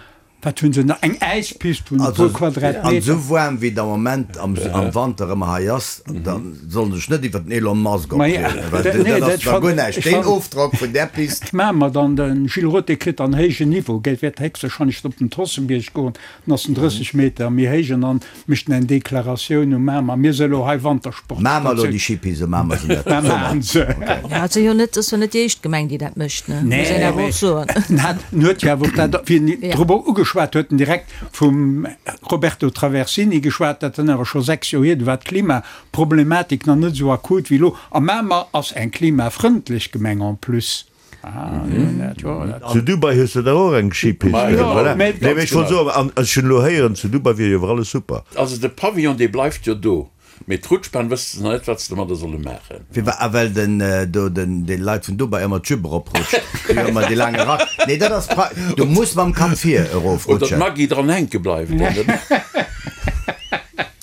S5: wat hunn se nach, eng Äispist vun e puer Quadratmeter.
S4: An esou waarm wéi et am Moment am Wanter ëmmer hei ass, da soll en sech net iwwer den Elon Musk opreegen, well dat ass zwar guer näischt, deen Ofdrock vun där Pist.
S5: Maache mer dann, de Gilles Roth, dee kritt dann héijen Niveau, gell, wäert héchstwahrscheinlech op den Tossenbierg goen, dann ass en 30 Meter méi héich an dann mécht en eng Deklaratioun u Mamer, mir se elo hei Wantersport.
S4: Maache mer elo déi Skipiste, maache mer se net?
S5: Mä maachen se.
S1: Ja, et ass jo net, ass jo net déi éischt Gemeng, déi dat mécht, ne, muss een awer och soen.
S5: En hat, en huet jo awer och dat, wéi en drop ugeschwat huet, en direkt vum Roberto Traversini geschwat, dat dann awer scho 6 Joer hier, du war d'Klimaproblematik nach net esou akut wéi elo. A Mamer ass eng klimafrëndlech Gemeng en plus.
S3: Zu Dubai hues de dach och eng Skipist, voilà. Nee, mee ech wollt soen, an ech hunn elo héieren, zu Dubai wier jo awer alles super.
S2: Also de Pavillon, dee bleift jo do. Mee d'Rutschbahn wësse se nach net, wat se domadder solle maachen.
S4: Firwat? Ah, well den do den de Leit vun Dubai ëmmer d'Jupe eroprutscht. Déi hu ëmmer dee laange Rack. Nee, dat ass pra, du muss mam Kapp vir
S2: Oder
S4: erofrutschen.
S2: d'Maggy dran hänke bleift.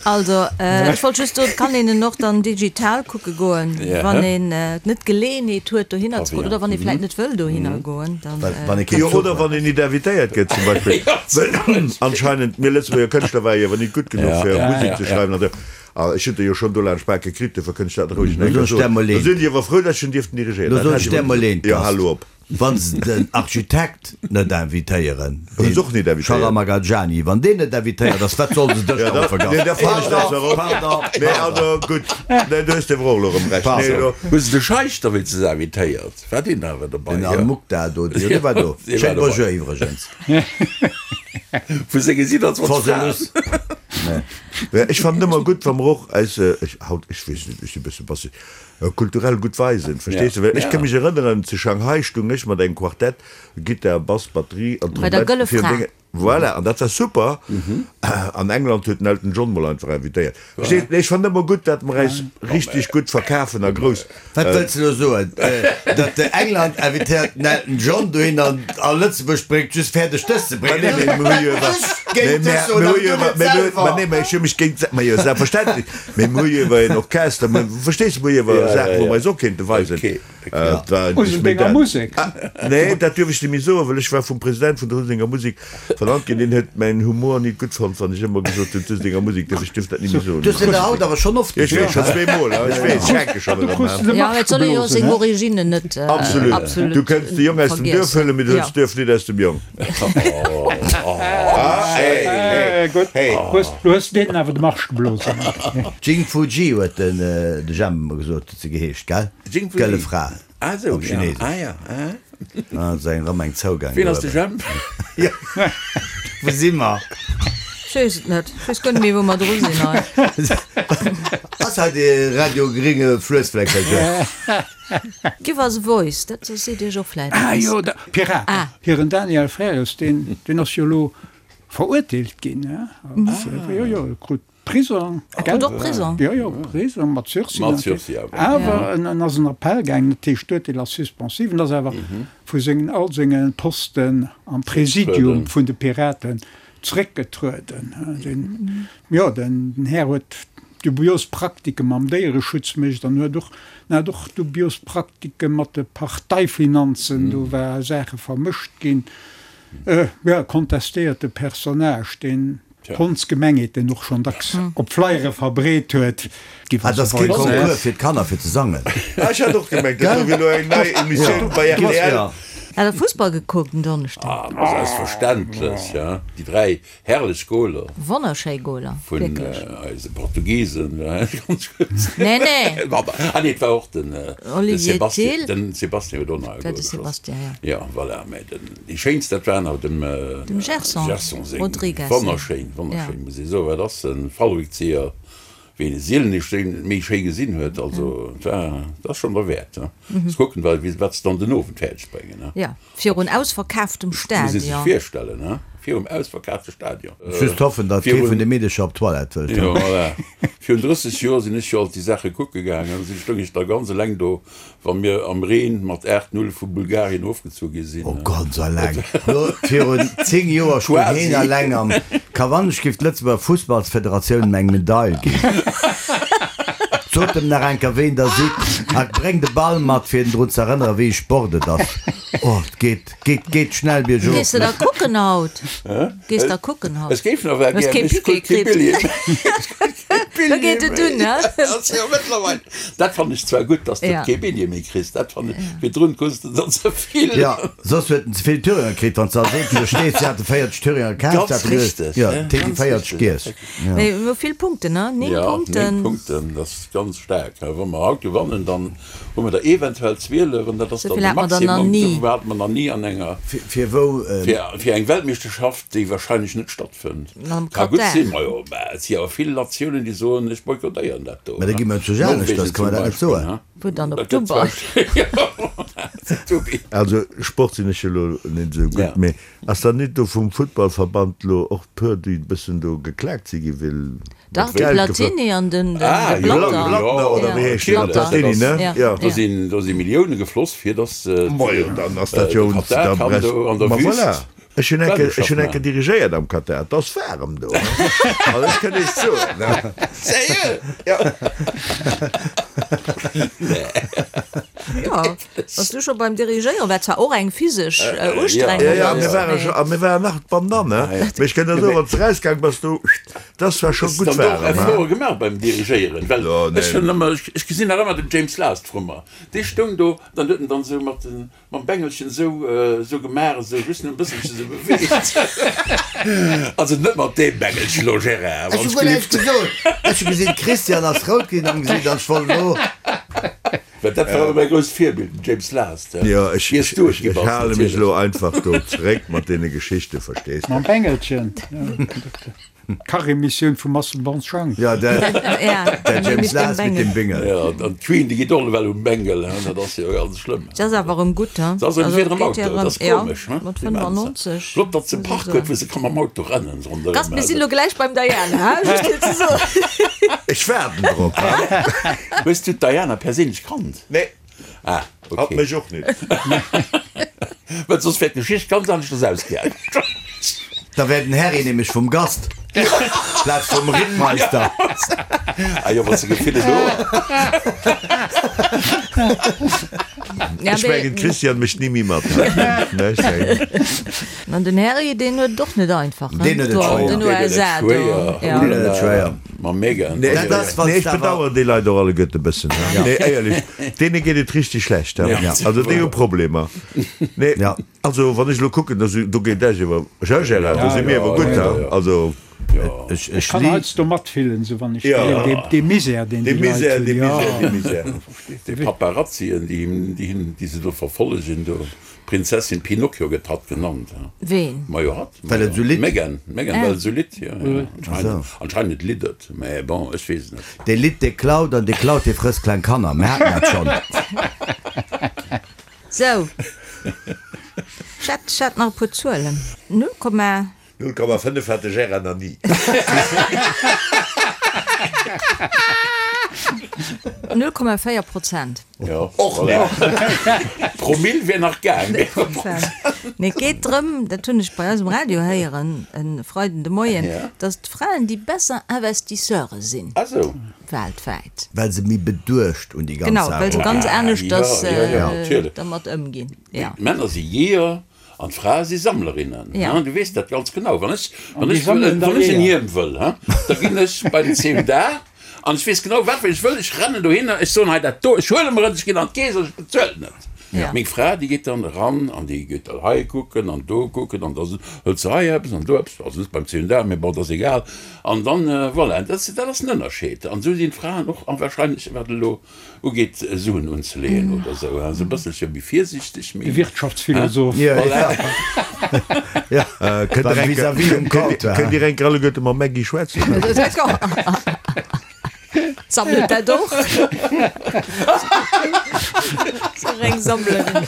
S1: Also, ech wollt just soen, et kann een en och dann digital kucke goen, wann een net d'Geleeënheet huet, dohinner ze goen, oder wann ee vläicht net wëll dohinner goen, dann.
S4: Wann ee keen
S3: Jo,
S4: Zuch
S3: oder
S4: huet.
S3: wann een nit invitéiert gëtt zum Beispill. Well anscheinend, mir Lëtzebuerger Kënschtler ware jo awer nit gutt genuch fir Musek ze schreiwen an esou. A ech hunn der jo schonn do laanscht Bake kritt, dofir kënnt ech dat roueg nach eng
S4: Lo
S3: Kéier
S4: soen ech där
S3: soen.
S4: mol
S3: Da
S4: eent.
S3: sinn déi awer frou, datt ech en dierften dirigéieren.
S4: Lo
S3: Dat
S4: soen
S3: hat
S4: ech
S3: ech
S4: där
S3: awer
S4: mol
S3: gesot.
S4: eent,
S3: Jo,
S4: Gast.
S3: hal lo op.
S4: Wann se den Architekt net invitéieren,
S3: Hunn se och
S4: dee
S3: nit invitéiert.
S4: Sharamagajani, wann deen net invitéiert ass, wat solle se dech
S3: Ja,
S4: dann
S3: da,
S4: vergassen?
S3: nee, da fannen ech dat zwar och.
S4: Pardon,
S3: Nee,
S4: pardon.
S3: also gutt. Nee, do hues de awer och elo erëm Recht. Nee, elo.
S2: Hu se de Scheich da wéinstens invitéiert? War deen awer dobei?
S4: Den Al-Mukhtar do, jo, dee war do.
S2: Dee war
S4: Schéin
S2: dobei.
S4: Bonjour iwwregens.
S2: Vu senge 27 Fraen.
S4: Force
S3: Ech fannen ëmmer gutt, wa mer och eis, ech, haut, ech weess net, ech si e bësse basseg, kulturell gutt weisen, verstees de? Well ech ka mech erënneren, zu Shanghai stung ech mat engem Quartett, Gittar, Bass, Batterie an
S1: Bei der
S3: Trompett,
S1: Gëlle
S3: fir
S1: Fra.
S3: Dénge, voilà, an dat war super. An England huet den Elton John mol einfach invitéiert. Verstees de? Ech fannen ëmmer gutt, dat mer äis richteg gutt verkafen a grouss.
S4: Wat wëlls de elo soen? Datt de England invitéiert den Elton John dohin an a Lëtzebuerg bréngt just fäerdeg dës ze
S3: Ma
S4: bréngen?
S3: nee, mee mer hu jo iwwer,
S4: Ech
S3: mee
S4: géint dech
S3: mer,
S4: soen,
S3: mer hu
S4: awer
S3: jo
S4: du
S3: iwwer,
S4: net
S3: mee mer,
S4: selwer.
S3: ma nee, mä ech hu mech géint, ma jo, selbstverständlech, mee mer hu jo iwwer en Orchester, mer, verstees de, mer hu jo iwwer Saachen, wou mer eis och kéinte weisen. Et war eigentlech méi
S5: Useldenger
S3: dat.
S5: Musek.
S3: Nee, dat duerf ech net méi soen, well ech war vum President vun der Useldenger Musek vernannt ginn. Deen huet mäin Humor nit gutt fonnt, wann ech ëmmer gesot hunn, d'Useldenger Musek dierf, ech duerf dat net méi soen.
S4: Du hues en der haut awer schonn oft
S3: Ech weess,
S4: gesot.
S3: schonn zweemol, ech weess, ech hänke schonn erëm, hein.
S1: Jo, et soll ee jo seng Originnen net
S3: Absolut.
S1: absolut
S3: Du kënns de Jong aus dem Duerf
S1: vergiessen.
S3: huelen, mee du huels
S1: Jo.
S3: d'Duerf nit aus dem Jong. Ah, hey, hey.
S5: Gutt, hues, du hues deenen awer de Marsch geblosen.
S4: Jing Fu Ji huet den de Jemp emmer gesot, huet se geheescht, gell?
S2: Jing Fu Ji.
S4: D'gëlle Fra.
S2: Ah esou,
S4: Op
S2: ja.
S4: Chinesesch.
S2: Ah ja, ah.
S4: Ah, ass eng erëm eng Zougang
S2: Wien ass de
S4: do eben.
S2: Jemp?
S4: Jo, wou si mer?
S1: Ech weess et net. Ech weess guer net méi, wou mer dru sinn hei.
S4: Ass hei de Radio Gringe Fluessfleckercher?
S1: Give us a voice, dat seet Iech och vläit
S5: Ah
S1: eppes.
S5: jo, de Piraten.
S1: Ah.
S5: Hiren Daniel Frères, deen, deen ass jo elo verurteelt ginn, hè? Jo, jo, krut Prisong,
S1: gell? Och Prisong?
S5: Jo, jo, Prisong mat Sursis.
S2: Mat Sursis, awer.
S5: Awer en ass en Appell gaangen, dat heescht d'Urteel ass suspensiv, en ass awer vu sengen, all senge Posten am Präsidium vun de Piraten zréckgetrueden. Den, jo, den Här huet dubios Praktike mam Déiereschutz mécht an huet och, en hat och dubios Praktike mat de Parteifinanzen, do war Saache vermëscht ginn. Jo, kontestéierte Personnage, deen d'Hondsgemengheet, deen och schonn dacks op Flyere verbreet huet.
S4: Ah, dat ass kee Concours fir d'Kanner fir ze sangen.
S3: Ah, ech hat och gemengt, dat do wier elo eng nei Emissioun bei rtl.
S1: Hat der Fussball gekuckt en Donneschden?
S2: Ah, selbstverständlech, ja. Déi 3 Herrlech Goler.
S1: Wonnerschéi Goler,
S2: Vun
S1: wierklech.
S2: eise Portugisen, ganz kuerz.
S1: Nee, nee.
S2: Ah nee, et war och den
S1: Olivier
S2: Sebastian,
S1: Thill.
S2: den Sebastian huet och nach e
S1: War
S2: Gol
S1: de
S2: geschoss.
S1: Sebastian, ja.
S2: Ja, voilà, mä den, déi schéinst, dat waren awer dem
S1: Dem Gerson
S2: Gerson seng.
S1: Rodrigues seng.
S2: Wonnerschéin, wonnerschéin,
S1: Ja.
S2: muss ee soen. Dat ass e Fallrückzieher, wéi een e sielen nicht méi schéi gesinn huet. Also, et war, dat ass schonn derwäert, ne. Muss kucken, wat se dann den Owend fäerdeg bréngen, ne.
S1: Ja. Virun ausverkaaftem
S2: Muss ee sech
S1: Stadion.
S2: virstellen, he? Virum ausverkaafte Stadion.
S4: Just hoffen, datt kee vun de Meedecher op d'Toilette wëllt.
S2: Jo, voilà. Virun 30 Joer sinn ech jo alt déi Saache kucke gaangen. Da stoung ech da ganz eleng do, wa mir am Reen mat 8, 0 vu Bulgarien ofgezu gi sinn.
S4: Oh, ganz eleng. Lo, virun 10 Joer stoung
S2: Quasi.
S4: heen eleng am Kawann. Ech géif d'Lëtzebuerger Fussballsfederatioun em eng Medail ginn. Sot em nach eng Kéier, ween der sidd, a bréngt e Ball mat, fir en drun z'erënneren, wéi e Sport et ass. Oh, et geet, geet, geet schnell biergof.
S1: Gees de da kucken haut? Gees da kucken haut?
S2: Ech géif nach well
S1: Hues
S2: gär,
S1: kee
S2: mee ech
S1: Piquet
S2: krut kee
S1: kritt.
S2: Billjee méi. Ech krut kee
S1: Da
S2: Billjee
S1: geet et
S2: méi.
S1: un, he?
S2: Ass jo mëttlerweil. Dat fannen ech zwar gutt, dass de
S1: Ja.
S2: kee Billjee méi kriss. Dat fannen ech, virdrun krus de der ze vill.
S4: Ja, soss huet en ze vill Thüringer kritt, wann s de als eenzege stees. Si hate 40 Thüringer kaf,
S2: Ganz
S4: si hate geduecht,
S2: richteg,
S4: jo,
S2: ne?
S4: et hätt
S2: Ganz
S4: 40
S2: richteg.
S4: giess.
S1: Mee mir hu vill Punkten, ne? 9
S2: Ja,
S1: Punkten.
S2: 9 Punkten, dat ass ganz staark. Wa mer haut gewannen, dann Hu mer der eventuell 12, an dat ass dann de Maximum, esou hate mer nach ni an enger,
S4: Fir wou?
S2: fir eng Weltmeeschterschaft, déi wahrscheinlech net stattfënnt. Ka gutt sinn, majo, mä et si awer vill Natiounen, déi soen, ech boykottéieren dat do.
S4: Mä da gi mer zu Janesch, dass kann mer dat net soen.
S1: Wou dann op Dubai?
S3: Also Sport sinn ech jo elo net esou gutt, mee ass dann nit do vum Futtballverband lo och puer, déi e bëssen do geklaakt si gi well
S1: Dach, de Platini an den
S2: Ah,
S1: de
S2: jo,
S1: Blatter.
S3: Blattner oder wéi heescht deen?
S1: Blatter.
S3: Platini, ne?
S1: Ja.
S3: Jo.
S2: Do sinn, do si Millioune gefloss, fir datt
S3: Majo, dann ass dat jo
S2: de
S3: uns
S2: Katar
S3: da
S2: kann
S3: brech.
S2: do an der
S3: Ma
S2: Wüst
S3: voilà. Ech hunn enke, ech hunn
S2: Weltmeeschterschaft
S3: enke
S2: maachen.
S3: dirigéiert am Katar. Et ass waarem do, ne? Also ech kënnt Iech soen, ne?
S2: Sérieux?
S3: Ja.
S1: Jo, bass du scho beim Dirigéieren, wat zwar och eng physesch Ustrengung
S3: Ja, ja,
S1: ass,
S3: mir ware
S1: mee.
S3: scho, a mir waren nach d'Bandanne, mee ech kënnt der soen, wann s de rausgaang bass, du, dass war scho
S2: Hues
S3: gutt
S2: de dann och
S3: waarem,
S2: Efforte
S3: he?
S2: gemaach beim Dirigéieren? Well
S3: Jo,
S2: ech
S3: nee.
S2: hunn ëmmer, ech gesinn nach ëmmer den James Last vru mer, dee stoung do, dann huet en dann esou mat den, mam Bengelchen esou, esou gemaach, esou just en bësselchen esou beweegt. Also net mat deem Bengelchen elo, Gérard,
S4: Ech
S2: wann
S4: hu
S2: ech
S4: guer näischt
S2: gelift.
S4: gesot. Ech hu gesinn, d'Christiane ass rout ginn am Gesiit an ech wollt elo.
S2: Well dat war ëmmer mäi grousst Virbild, den James Last.
S3: Jo, ech,
S2: Iers du et
S3: ech,
S2: gi
S3: ech
S2: bass,
S3: hale mech
S2: natierlech.
S3: elo einfach do zeréck mat deene Geschichten, verstees de?
S5: Mam Bengelchen, ja. D'Kachemissioun vum Marcel Bonschang.
S4: Ja, der, der James Last mit dem Bengel.
S2: Ja, an d'Queen, déi geet och ewell um Bengel, hein, dat ass jo ganz schlëmm.
S1: Dat ass awer erëm gutt, hein?
S2: Dat ass erëm
S1: Also,
S2: fir erëm
S1: geet
S2: Auto,
S1: jo
S2: dat ass
S1: erëm, ja,
S2: komesch, hein?
S1: mat 95.
S2: Flott, datt se e Park huet, wou se ka mam Auto rennen ronderëm.
S1: Gast, mir sinn elo gläich beim Diana, hein? Just fir ze soen.
S3: Ech waarden drop, hein?
S2: Hues du d'Diana perséinlech kannt?
S3: Nee.
S2: Ah,
S3: Hatt
S2: okay.
S3: mech och net.
S2: Well soss wär d'Geschicht ganz aneschters ausgaangen.
S4: Da wär den Harry nämlech vum Gast plaz vum Rittmeister.
S2: Ah jo, wann s de Gefille do.
S3: Ech mengen d'Christiane mécht ni méi mat.
S1: An den Harry, deen huet et och net einfach, hein?
S4: Deen huet et
S1: Do an
S4: schwéier.
S1: den USA do.
S4: Deen huet et schwéier.
S2: Mam Meghan.
S3: Nee,
S4: Dat ass, wann
S3: ech
S4: s de awer.
S3: bedauern déi Leit och alleguerte e bëssen. Nee, éierlech, deene geet et richtig schlecht. Also déi hu Problemer. Nee, also wann ech elo kucken, do geet Esch iwwer, Gérard, do si mir awer gutt. Also.
S4: Ech
S5: Ech kann heiansdo matfillen, esou wann ech gesinn, dee Misär, deen déi Leit hunn.
S3: Dee Misär, dee Misär, dee Misär.
S2: Déi Paparazzien, déi him, déi him, déi se do verfollegen, do, Prinzessin Pinocchio gëtt hatt genannt, ha?
S1: Ween?
S2: Majo hatt,
S4: Well et esou litt?
S2: D'Meghan, d'Meghan, well et esou litt, jo, jo, anscheinend, anscheinend litt et, mä bon, ech weess et net.
S4: Dee litt, dee klaut, an dee klaut, dee frësst kleng Kanner. Mir haten dat schonn.
S1: Sou, ech hätt, ech hätt nach e puer Zuelen. Null Komma.
S3: 0,5 hat de Gérard nach ni.
S1: 0,4 Prozent.
S2: Jo, och net. Promill wier nach gaang.
S1: Nee, et geet drëm, dat hunn ech bei eis um Radio héieren e Freiden de Moien, datt d'Fraen déi besser Investisseure sinn weltwäit.
S4: Well se méi beduecht un déi ganz
S1: Genau,
S4: Saach
S1: well se ganz
S4: eruginn.
S1: aneschters
S2: Natierlech.
S1: dermat ëmginn.
S2: D'Männer si Jeeër An d'Frae si Sammlerinnen,
S1: Ja.
S2: du weess dat ganz genau. Wann ech, wann
S5: An déi
S2: ech,
S5: sammelen da
S2: wann ech en
S5: Eeër.
S2: Hiem wëll, he, da ginn ech bei den CMDA an ech weess genau, wat ech wëll. Ech rennen dohinner, ech soen, hei dat do, ech huele mer et, ech ginn an d'Keess an ech bezuelen et.
S1: Ja.
S2: Meng Fra, déi geet dann eran an déi geet dann hei kucken an do kucken an da hëlt se hei eppes an do eppes, also net beim CMDA, mee bon, dat ass egal. An dann, voilà, dat, dat ass den Ënnerscheed. An esou sinn d'Fraen och, a wahrscheinlech wat elo Ugeet Suen unzeleeën oder esou, esou e bësselche méi virsiichteg,
S5: méi. De Wirtschaftsphilosoph.
S3: Kënnt Dir enker alleguerte mam Maggy schwätzen?
S1: Sammelt dat och? Sou reng Sammlerin.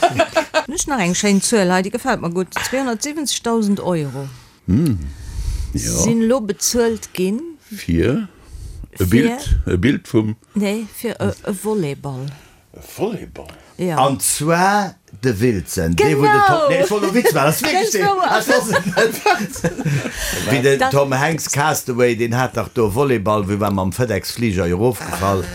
S1: Hunn ech nach eng schéin Zuel hei, déi gefält mer gutt, 270.000 Euro sinn elo bezuelt ginn.
S2: Fir e Bild, e Bild vum.
S1: Nee, fir e Volleyball.
S2: E Volleyball?
S1: Jo.
S4: An zwar de Wilson, dee wou den Tom, nee ech wollt e Witz maachen, ass wierklech deen, ass ass et net? Wéi den Tom Hanks Castaway, deen hat dach do e Volleyball, wou war mam FedEx Fliger erofgefall.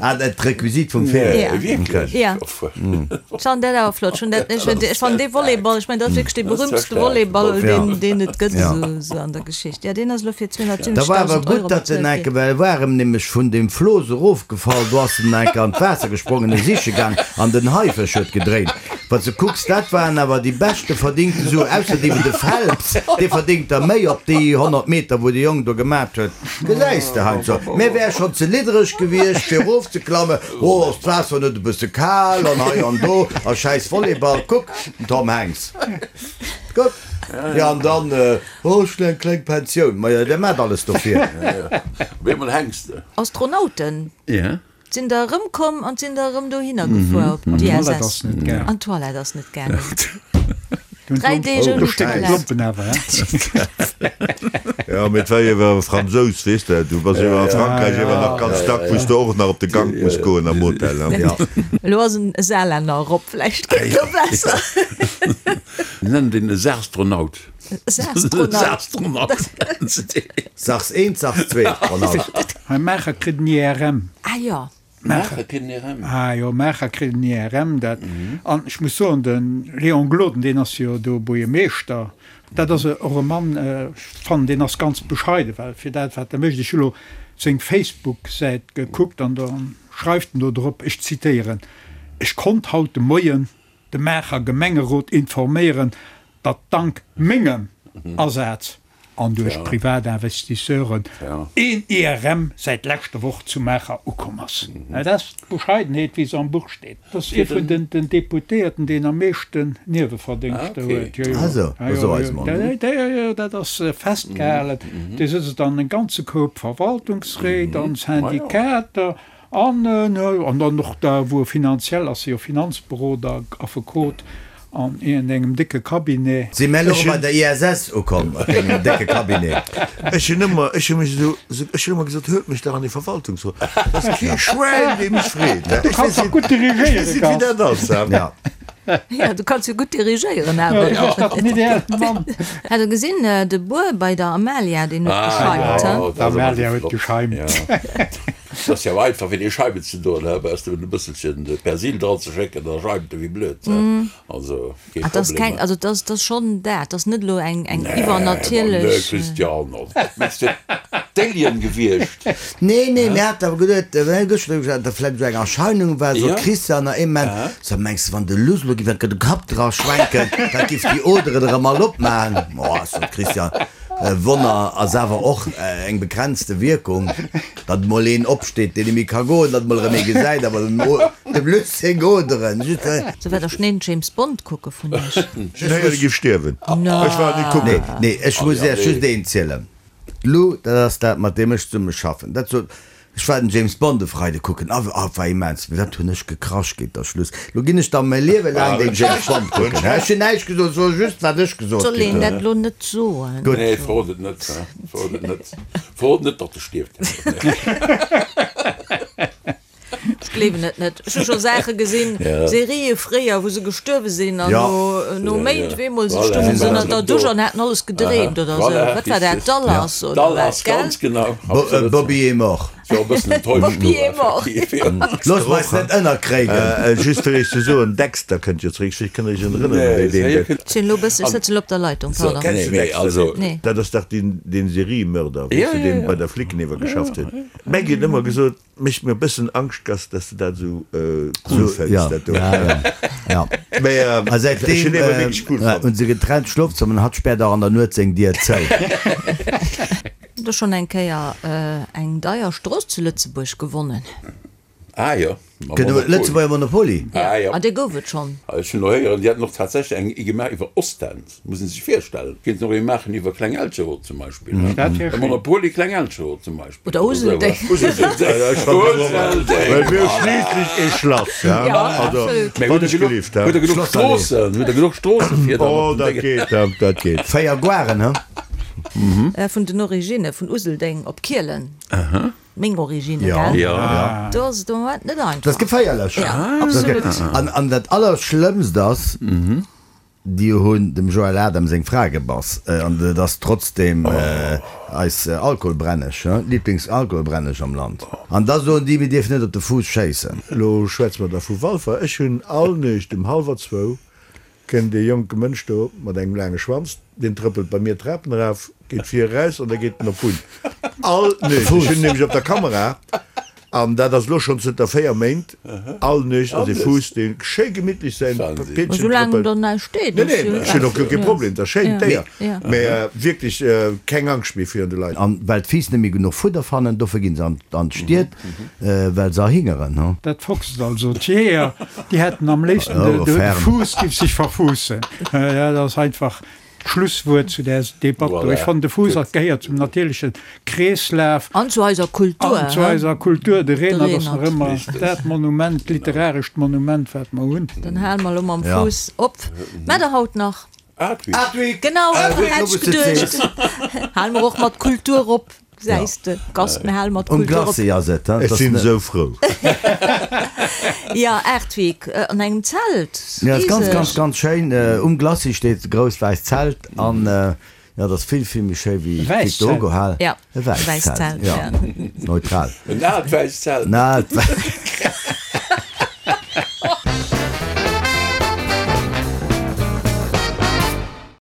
S4: Ah, dat d'Requisite vum Film.
S1: Ja.
S2: Wierklech?
S1: Ja. Ech fannen dat awer flott. Ech hunn dat, ech, ech fannen dee Volleyball, ech mengen, dat ass wierklech dee berühmtste Volleyball, deen, deen et gëtt esou, esou an der Geschicht. Ja, deen ass elo fir
S4: 270.000 Da war awer
S1: Euro
S4: gutt, datt en
S1: bezuelt
S4: enke,
S1: ginn.
S4: well e war erëm nämlech vun deem Flooss erofgefall, do ass en enke an d'Waasser gesprongen, e siche gaang an den Haifësch huet gedréint. Wann s de kucks, dat waren awer déi beschte verdingte Suen, ausser déi de Phelps, dee verdéngt der méi op déi 100 Meter, wou de Jong do gemat huet. Gesäis de heiansdo, mir wär schonn ze liddereg gewiescht fir erofzeklammen, oh ass d'Waasser net e bësse kal an hei an do a schäiss Volleyball, kuck den Tom Hanks, kuck, jo an dann, oh ech hunn eng kleng Pensioun, majo der maacht alles dofir.
S2: Op eemol hänks de.
S1: Astronauten sinn der erëmkomm an sinn der erëm dohinner gefuer op d'ISS. An d'Toilette ass net gaangen. 3 Deeg ouni Toilette.
S3: Jo, mee et war jo awer e Fransous, weess de. Du bass jo a Frankräich iewer nach ganz dack, wou s de och nach op de Gank muss goen am Hotel.
S1: Elo ass en Saarlänner erop, vläicht geet et elo besser.
S2: Nennen den e Saastronaut.
S1: Saastronaut.
S4: Sachs eent, Sachs zweet, Ronald.
S5: Hei Maacher kritt en IRM.
S1: Ah jo.
S2: Maacher kritt en IRM.
S5: Ah jo, Maacher kritt en IRM. Dat, an ech muss soen, de Léon Gloden, deen ass jo do Buergermeeschter, dat ass och e Mann, ech fannen, deen ass ganz bescheiden, well fir dat, wat e mécht, ech hu lo seng Facebook-Säit gekuckt an da schreift en do drop, ech zitéieren, Ech konnt haut de Moien de Maacher Gemengerot informéieren, datt dank mengem Asaz an duerch privat Investisseuren een IRM säit leschter Woch zu Maacher ukomm ass. Dat ass d'Bescheidenheet, wéi se am Buch steet. Dat ass ee vun den Deputéierten, deen am meeschten Nieweverdéngschter huet. Jo, jo, dat ass festgehalen. Dee sëtzt an e ganze Koup Verwaltungsréit an Syndikater. An an dann och da wou e finanziell ass, e jo Finanzberoder, Affekot an iergendengem décke Cabinet.
S4: Si mär elo bei der ISS ukomm, op dengem décke Cabinet?
S3: Ech hunn ëmmer, ech hu mech esou, ech hunn ëmmer gesot, huelt mech dach an dee Verwaltungsrot, et ass kee Schwäin, dee mech freet.
S5: Du kanns dach gutt dirigéieren,
S3: Ech weess net, wéi dat ass.
S4: Ja.
S1: Ja, du kanns jo gutt dirigéieren awer.
S5: Jo, du bass dach den ideellen Mann.
S1: Hat der gesinn, de Buer bei der Amalia, deen huet gescheimt, he?
S5: D'Amalia huet gescheimt.
S2: Et ass jo einfach fir déi Scheiwen ze doen, he, baus de e bësselchen Persil dran ze schécken, da scheimt e wéi blöd, he. Also kee
S1: Ah, dat ass
S2: Problem,
S1: keng,
S2: he.
S1: also dat ass, dat ass schonn dat, dat ass net elo eng, eng
S2: Nee, ma nee,
S1: iwwernatierlech.
S2: Christian, also mess de d'Alien gewiescht?
S4: Nee, nee, mir haten awer geduet, mir hu gëschter drüber geschwat, datt vläicht esou eng Erscheinung war, sot d'Christiane nach ee Moment, so mengs de, wann de Luss elo giff enke de Kapp dra schwenken, dat giff déi Oderen erëm all opmachen? Oh, sot d'Christiane. Wonner ass awer och eng begrenzte Wierkung, datt mol een opsteet, deen net méi ka goen, datt mol erëm ee gesäit, awer dem Luc seng Oderen just.
S1: Sou wat der schneen James Bond kucke vun iech?
S3: Ech hunn héieren, e giff stierwen. Ech war net kucken.
S4: Nee, nee, ech muss iech just eent zielen. D'Lou, dat ass dat, mat deem ech zesumme schaffen, dat sot, Ech war den James Bond e Freide kucken, a a war immens, mee wat hunn ech gekrasch géint der Schluss. Lo ginn ech da mäi Liewe laang den James Bond kucken. Ech hunn näischt gesot, ech soe just, wat ech gesot
S1: Soll
S4: kritt
S1: een
S4: hunn.
S1: dat lo net soen?
S4: Gutt.
S2: Nee, verrot et net, verrot et net. Verrot net, datt e stierft.
S1: Ech gleewen et net. Ech hu scho Saache gesinn, Serië fréier, wou se gestuerwe sinn an no Méint op eemol si stounge se ënner der Dusch an haten alles gedreemt oder esou. Wat war dat, Dallas oder wat,
S4: gell? Bobby est mort.
S1: Bobby est mort.
S4: Looss mer eis net ënnerkréien.
S3: Just fir iech ze soen, Dexter kënnt jo zeréck. Ech kënnt iech erënneren, wéi deen gëtt.
S1: Ech sinn elo e bëssen, ech sëtzen elo op der Leitung, pardon.
S3: Kenns du Dexter net? Dat ass dach deen Seriemörder, weess de, deen bei der Flicken ewer geschafft huet. D'Maggie huet ëmmer gesot, Mécht mir e bëssen Angscht, Gast, dass de dat esou cool fënns, dat do. Mee
S4: ech hunn ewer wierklech cool fonnt. Hunn se getrennt Schlofzëmmer an hatt späert och an der Nuet seng Dier zou.
S1: Hutt der schonn eng Kéier eng deier Strooss zu Lëtzebuerg gewonnen?
S2: Ah jo,
S4: mam Monopoly. Lëtzebuerger Monopoly?
S2: Ah jo.
S1: Ah, dee gouf et schonn.
S2: Ech hunn elo héieren, déi hätten och tatsächlech eng gemaach iwwer Ostend. Muss een sech virstellen. Kéinten och ee maachen iwwer Kleng-Elcheroth zum Beispill.
S5: Dat wär
S2: E
S5: schéin.
S2: Monopoly Kleng-Elcheroth zum Beispill.
S1: Oder Useldeng.
S2: Useldeng. Useldeng.
S3: Well mir hu schliisslech ee Schlass, ja.
S1: Ja,
S3: Also,
S1: absolut.
S2: Mä
S3: wann
S2: hutt der
S3: ech
S2: genuch,
S3: gelift, he.
S2: hutt der genuch Stroossen? Hutt der genuch Stroosse fir da
S3: Oh,
S2: mat den
S3: dat
S2: Déngen?
S3: geet, dat, dat geet.
S4: 4 Goaren, he?
S1: Vun den Originne vun Useldeng op Kielen. Meng Origine,
S4: Ja.
S1: gell?
S2: Ja.
S1: Do ass et am Moment net einfach.
S4: Dat ass geféierlech.
S1: Ja, absolut.
S4: An, an dat Allerschlëmmst ass, déi hunn dem Joël Adam seng Fra gebass. An et ass trotzdem eis Alkoholbrenneg, Lieblingsalkoholbrenneg am Land. An da soen déi, mir dierfen net op de Fuuss schéissen.
S3: Elo schwätze mer da vu Walfer. Ech hunn all Nuecht um hallwer zwou Kënnt ee jonke Mënsch do mat engem laange Schwanz, deen trëppelt bei mir d'Trapen eraf, geet vir eraus an da geet en op d'Bunn. All Nuecht. Ech hunn nämlech op der Kamera, an dat ass elo schonn zënter 4 Méint, all Nuecht ass ee Fuuss, dee schéi gemittlech säin Piedchen
S1: Soulaang
S3: trëppelt.
S1: do näischt steet,
S3: Nee,
S1: ass
S3: nee,
S1: jo
S3: ech hunn och guer kee Problem, et ass schéin, d'Déier, mä wierklech keng Angscht méi virun de Leit.
S4: An well d'Fiiss net méi genuch Fudder fannen, dofir ginn se an d'Stied, well se erhingeren.
S5: Dat foxt also. D'Jeeër, déi hätten am léifsten, de Fuuss giff sech verfuussen. Dat ass einfach d'Schlusswuert zu där Debatt do. Ech fannen, de Fuuss ass, gehéiert zum natierleche Kreeslaf.
S1: An zu eiser Kultur.
S5: An zu eiser Kultur. De Renert ass nach ëmmer dat Monument, literarescht Monument, wat mer hunn.
S1: Dann hale mer elo mam Fuuss op. Mä der haut nach.
S2: Artweek.
S1: Genau, hätt ech geduecht. Hale mer och mat Kultur op. Gesäis de, Gast, mir hale mat
S4: Um
S1: Kultur op.
S4: Glacis ass et,
S3: Ech sinn esou frou.
S1: Jo, Artweek, an engem Zelt,
S4: Ja, ass ganz, ganz,
S1: riseg.
S4: ganz schéin. Um Glacis steet e grousst wäisst Zelt an jo, dat ass vill, vill méi schéi wéi
S5: E wäisst Zelt?
S4: d'Victor Hugo Hal.
S1: Ja,
S4: E wäisst
S1: wäisst
S4: Zelt,
S1: Zelt,
S4: jo.
S1: ja.
S4: Neutral.
S2: En aalt wäisst Zelt.
S4: En aalt wäisst.